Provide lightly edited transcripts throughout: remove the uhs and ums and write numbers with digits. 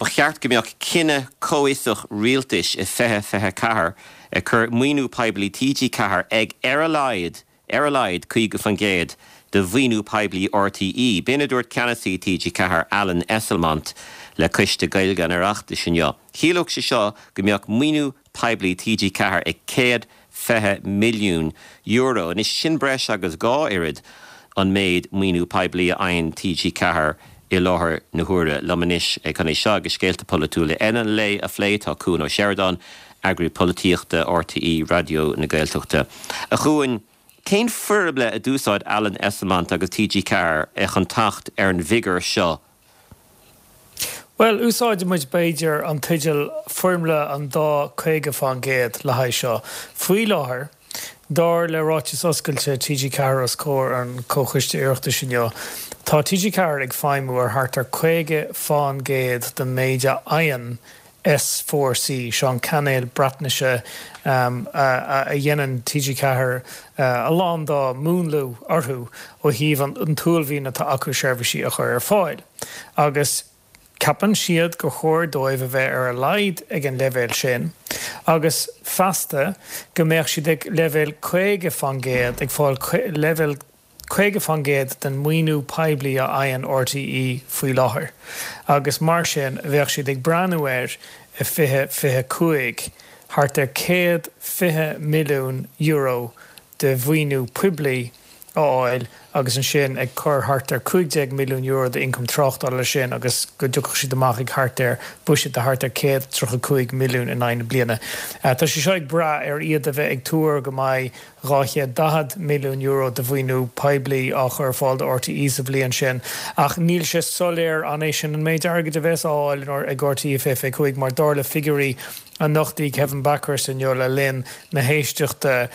Ba cheart go mbeadh cinneadh comhfhiosach rialtais i 2024 ag cur maoiniú poiblí TG4 ag ar a laghad, ar a laghad 50% de mhaoiniú poiblí RTÉ. B'in a dúirt ceannasaí TG4, Alan Esslemont, le Coiste Gaeilge an Oireachtais inniu. Chiallódh sé seo go mbeadh maoiniú poiblí TG4 ag €120 milliún. Anois, sin breis agus 2 oiread an méid maoiniú poiblí a fhaigheann TG4 i láthair na huaire. Liom anois chun é seo agus scéalta polaitiúla eile an lae a phlé tá Cuan Ó Seireadáin, Eagraí Polaitíochta RTÉ Raidió na Gaeltachta. A Chuain, cén foirmle a d'úsáid Alan Esslemont agus TG4 chun teacht ar an bhfigiúr seo? Bhuel, úsáidfidh muid, b'fhéidir, an teideal 'Foirmle an dá 50%' le haghaidh seo. Faoi láthair, dar le ráiteas oscailte TG4 os comhair an Chomhchoiste Oireachtais inniu, tá TG4 ag feidhmiú ar thart ar 50% den méid a fhaigheann S4C, seo an cainéal Breatnaise a dhéanann TG4 a lán dá múnlú orthu ó thaobh an t-uaillmhian atá acu seirbhísí a chur ar fáil. Agus ceapann siad gur chóir dóibh a bheith ar a laghad ag an leibhéal sin agus feasta go mbeadh siad ag leibhéal 50%, ag fáil leibhéal 50% den maoiniú poiblí a fhaigheann RTÉ faoi láthair agus mar sin bheadh siad ag breathnú ar i 2025 thart ar €120 milliún de mhaoiniú poiblí a fháil agus ansin ag cur thart ar €15 milliún d'ioncam tráchtála leis sin agus go dtiocfadh siad amach ag thart ar bhuiséad de thart ar 135 milliún in aghaidh na bliana. Tá sé seo ag brath ar iad a bheith ag tuar go mbeidh €240 milliún de mhaoiniú poiblí á chur ar fáil do RTÉ sa bhliain sin ach níl sé soiléir an é sin an méid airgid a bheas á fháil ag RTÉ i 2025 mar dar le figiúirí a nochtaigh Kevin Bakhurst inniu le linn na héisteachta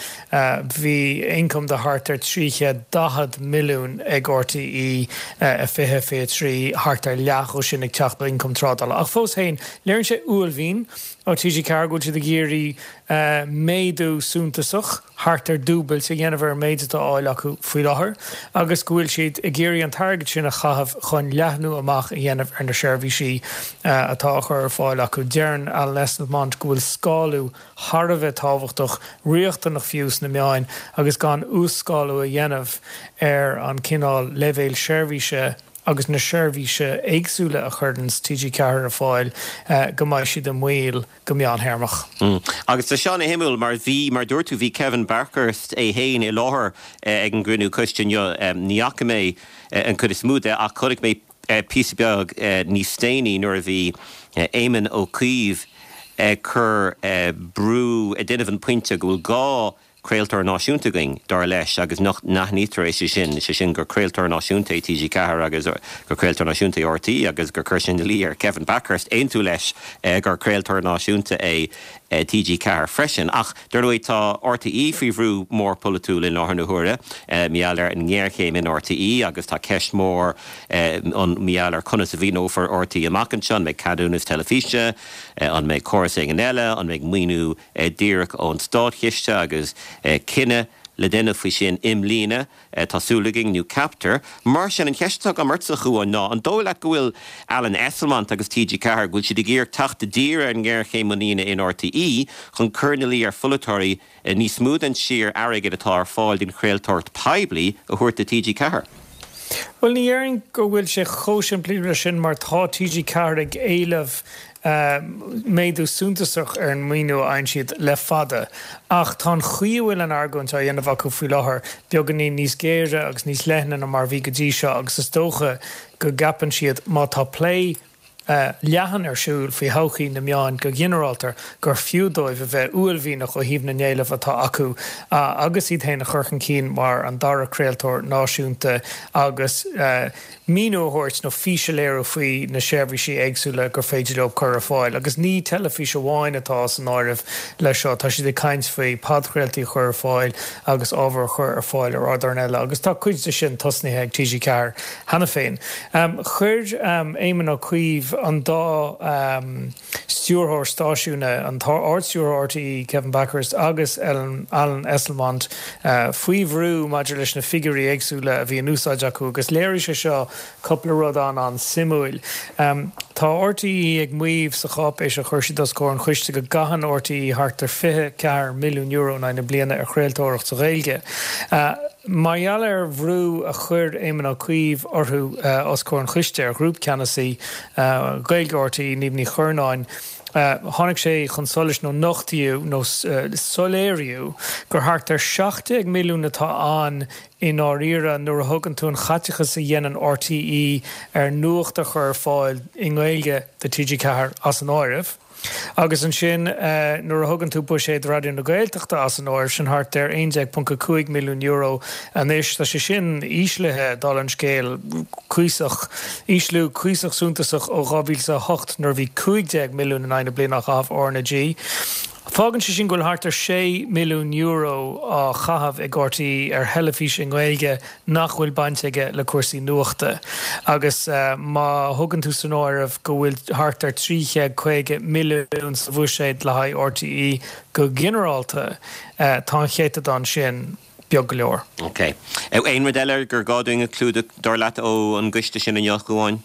bhí ioncam de thart ar 340 milliún ag RTÉ i 2023, thart ar leath dhó sin ag teacht ó ioncam trádála. Ach fós féin, léiríonn sé uaillmhian ó TG4 go bhfuil siad ag iarraidh méadú suntasach, thart ar dúbailt, a dhéanamh ar an méid atá á fháil acu faoi láthair agus go bhfuil siad ag iarraidh an t-airgead sin a chaitheamh chun leathnú amach a dhéanamh ar na seirbhísí atá á chur ar fáil acu. Deireann Alan Esslemont go bhfuil scálú thar a bheith tábhachtach, riachtanach fiú, sna meáin agus gan uas-scálú a dhéanamh ar an cineál leibhéil seirbhíse agus na seirbhíse éagsúla a chuireanns TG4 ar fáil go mbeidh siad i mbaol go meántéarmach. Agus tá seo ana-shuimiúil mar bhí, mar dúirt tú, bhí Kevin Bakhurst é féin i láthair ag an gcruinniú coiste inniu. Ní fhaca mé an chuid is mó de ach chonaic mé píosa beag níos déanaí nuair a bhí Éamon Ó Cuív ag cur brú, ag déanamh an pointe go bhfuil gá craoltóir náisiúnta againn, dar leis, agus nach n-aithnítear é, sé sin, sé sin gur craoltóir náisiúnta é TG4 agus gur craoltóir náisiúnta é RTÉ agus gur chuir sé ina luí ar Kevin Bakhurst aontú leis gur craoltóir náisiúnta é TG4 freisin. Ach, dar ndóigh, tá RTÉ faoi bhrú mór polaitiúil i láthair na huaire, mar gheall ar an ngéarchéim in RTÉ agus tá ceist mhór ann mar gheall ar conas a mhaoineofar RTÉ amach anseo, an mbeidh ceadúnas teilifíse, an mbeidh córas éigin eile, an mbeidh maoiniú díreach ón státchiste agus cinneadh le déanamh faoi sin i mbliana, tá súil againn, nó ceaptar. Mar sin, an cheist atá agam ortsa, a Chuáin, ná an dóigh leat go bhfuil Alan Esslemont agus TG4, go bhfuil siad ag iarraidh teacht i dtír ar an ngéarchéim muiníne in RTÉ chun cur ina luí ar pholaiteoirí níos mó den sciar airgid atá ar fáil don chraoltóireacht poiblí a thabhairt do TG4? Bhuel, ní dhéarfainn go bhfuil sé chomh simplí leis sin mar tá TG4 ag éileamh méadú suntasach ar an maoiniú a fhaigheann siad le fada ach tá an chaoi a bhfuil an argóint á dhéanamh acu faoi láthair beagáinín níos géire agus níos leithne ná mar a bhí go dtí seo agus is dócha go gceapann siad má tá plé leathan ar siúl faoi thodhchaí na meáin go ginearálta gur fiú dóibh a bheith uaillmhianach ó thaobh na n-éileamh atá acu agus iad féin a chur chun cinn mar an dara craoltóir náisiúnta agus míniú a thabhairt nó fís a léiriú faoi na seirbhísí éagsúla gur féidir leo cur ar fáil. Agus ní teilifís amháin atá san áireamh leis seo, tá siad ag caint faoi podchraoltaí a chur ar fáil agus ábhar a chur ar fáil ar ardáin eile agus tá cuid de sin tosnaithe ag TG4 cheana féin. Chuir Éamon Ó Cuív an dá. stiúrthóir stáisiúin, an tArd-Stiúrthóir RTÉ, Kevin Bakhurst agus Alan Esslemont faoi bhrú maidir leis na figiúirí éagsúla a bhí in úsáid acu agus léirigh sé seo cúpla rud an-an-suimiúil. Tá RTÉ ag maíomh sa cháipéis a chuir siad os comhair an choiste go gcaitheann RTÉ thart ar €24 milliún in aghaidh na bliana ar chraoltóireacht sa Ghaeilge. Mar gheall ar bhrú a chuir Éamon Ó Cuív orthu os comhair an choiste, ar Ghrúpcheannasaí Gaeilge RTÉ, Niamh Ní Churnáin, tháinig sé chun solais nó nochtaíodh nó soiléiríodh gur thart ar 17 milliún atá ann i ndáiríre nuair a thugann tú an chaiteachas a dhéanann RTÉ ar nuacht a chur ar fáil i nGaeilge do TG4 as an áireamh. Agus ansin nuair a thugann tú buiséad Raidió na Gaeltachta as an áireamh, sin thart ar €11.5 milliún anois. Tá sé sin íslithe, dála an scéil, cuíosach, ísliú cuíosach suntasach ó 2008 nuair a bhí 15 milliún in aghaidh na bliana á chaitheamh RnaG. Fágann sé sin go bhfuil thart ar €6 milliún á chaitheamh ag RTÉ ar theilifís i nGaeilge nach bhfuil baint aige le cúrsaí nuachta. Agus má thugann tú san áireamh go bhfuil thart ar 350 milliún sa bhuiséad le haghaidh RTÉ go ginearálta, tá an céatadán sin beag go leor. Ok. Aon rud eile gur gá dúinn a chlúdach, dar leat, ó an gcoiste sin inniu, a Chuáin?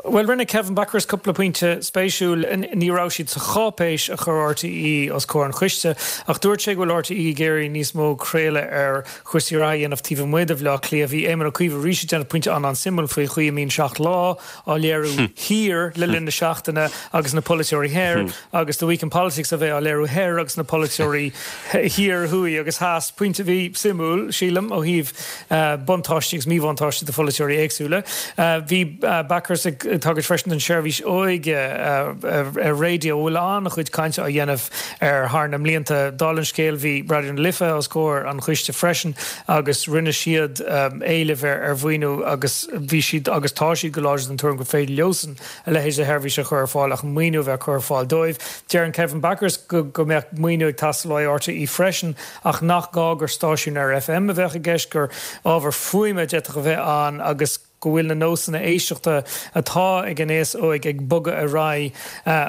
Bhuel, rinne Kevin Bakhurst cúpla pointe spéisiúil. Ní raibh siad sa cháipéis a chuir RTÉ os comhair an choiste, ach dúirt sé go bhfuil RTÉ ag iarraidh níos mó craoladh ar chúrsaí reatha a dhéanamh taobh amuigh de Bhaile Átha Cliath. Bhí Éamon Ó Cuív arís ag déanamh pointe an-an-suimiúil faoi chaoi a mbíonn Seacht Lá á léiriú thiar le linn na seachtaine agus na polaiteoirí thoir agus The Week in Politics a bheith á léiriú thoir agus na polaiteoirí thiar, thuaidh agus theas. Pointe a bhí suimiúil, sílim, ó thaobh buntáistí agus míbhuntáistí do pholaiteoirí éagsúla. Bhí Bakhurst ag tagairt freisin don tseirbhís óige ar raidió, a bhfuil an-chuid cainte á dhéanamh air thar na mblianta. Dála an scéil, bhí Raidió na Life os comhair an choiste freisin agus rinne siad éileamh ar mhaoiniú agus bhí siad agus tá siad go láidir den tuairim gur féidir leosan a leithéid de sheirbhís a chur ar fáil ach maoiniú a bheith curtha ar fáil dóibh. Deireann Kevin Bakhurst go mbeadh maoiniú ag teastáil ó RTÉ freisin ach nach gá gur stáisiún ar FM a bheadh i gceist, gur ábhar fuaime a d'fhéadfadh a bheith ann agus go bhfuil na nósanna éisteachta atá ag an aos óig ag bogadh ar aghaidh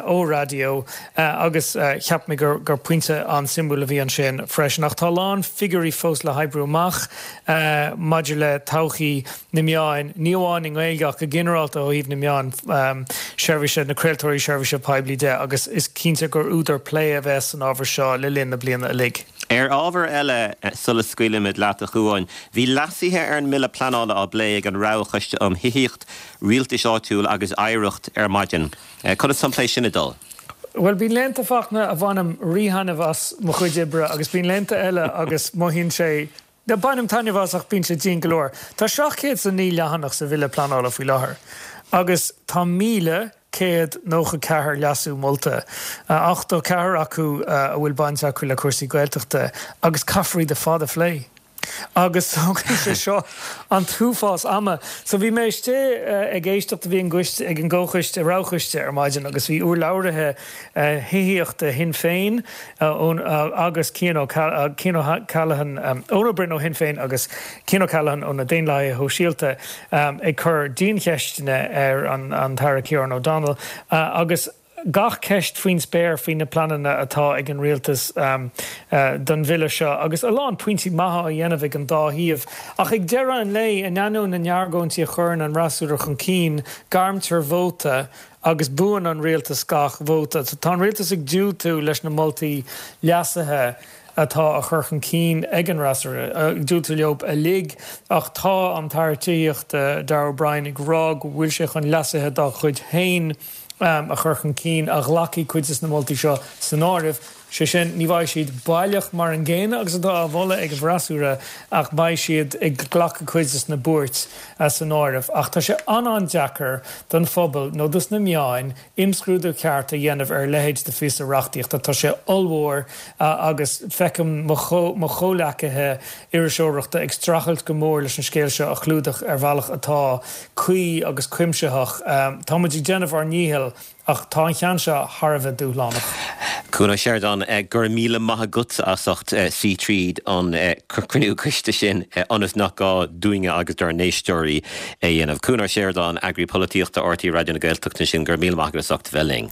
ó raidió agus cheap mé gur pointe an-suimiúil a bhí ansin freisin. Ach tá a lán figiúirí fós le hoibriú amach maidir le todhchaí na meáin, ní amháin i nGaeilge ach go ginearálta ó thaobh na meáin seirbhíse, na craoltóirí seirbhíse poiblí de agus is cinnte gur údar plé a bheas san ábhar seo le linn na bliana uilig. Ar ábhar eile, sula scaoilimid leat, a Chuáin, bhí leasuithe ar an mBille Pleanála á bplé ag an Roghchoiste um Thithíocht, Rialtais Áitiúil agus Oidhreacht ar maidin. Conas tá an plé sin ag dul? Bhuel, bíonn laethanta, Fachtna, a bhainim rí-thaitneamh as mo chuid oibre agus bíonn laethanta eile agus mothaíonn sé Bainim taitneamh as ach bíonn sé dian go leor. Tá 709 leathanach sa Bhille Pleanála faoi láthair agus tá 1,194 leasú molta, 84 acu a bhfuil baint acu le cúrsaí Gaeltachta agus caithfear iad ar fad a phlé. Agus tógann sé seo an t-uafás ama. So bhí mé istigh ag éisteacht, bhí an ag an gcomhchoiste, roghchoiste ar maidin agus bhí urlabhraithe thithíochta Shinn Féin, agus Cian O'Callaghan, Eoin Ó Broin ó Shinn Féin agus Cian O'Callaghan ó na Daonlathaithe Shóisialta ag cur diancheisteanna ar an tAire Ciarán O'Donnell agus gach ceist faoin spéir faoi na pleananna atá ag an rialtas don bhille seo agus a lán pointí maithe á dhéanamh ag an dá thaobh. Ach ag deireadh an lae, in ainneoin na n-argóintí a chuireann an fhreasúra chun cinn, gairmtear vóta Agus buann an rialtas gach vóta. Tá an rialtas ag diúltú leis na moltaí leasaithe atá á chur chun cinn ag an fhreasúra, ag diúltú leo uilig, ach tá an tAire Tithíochta, Darragh O'Brien, ag rá go bhfuil sé chun leasuithe dá chuid féin a chur chun cinn a ghlacfaidh cuid de na moltaí seo san áireamh. Sé sin, ní bheidh siad baileach mar an gcéanna agus atá á mholadh ag an bhfreasúra ach beidh siad ag glacadh cuid des na buairt san áireamh. Ach tá sé an-an-deacair don phobal nó dos na meáin imscrúdú ceart a dhéanamh ar a leithéid de phíosa reachtaíochta. Tá sé ollmhór agus feicim mo chomhleacaithe iriseoireachta ag streachailt go mór leis an scéal seo a chlúdach ar bhealach atá cuí agus cuimsitheach. Tá muid ag déanamh ár ndícheall Ach tá an ceann seo thar a bheith dúshlánach. Cuan Ó Seireadáin, go raibh míle maith agat as ucht suí tríd an cruinniú coiste sin ionas nach gá dúinne agus dár n-éisteoirí é a dhéanamh. Cuan Ó Seireadáin, Eagraí Polaitíochta RTÉ Raidió na Gaeltachta ansin, go raibh míle maith agat as ucht a bheith linn.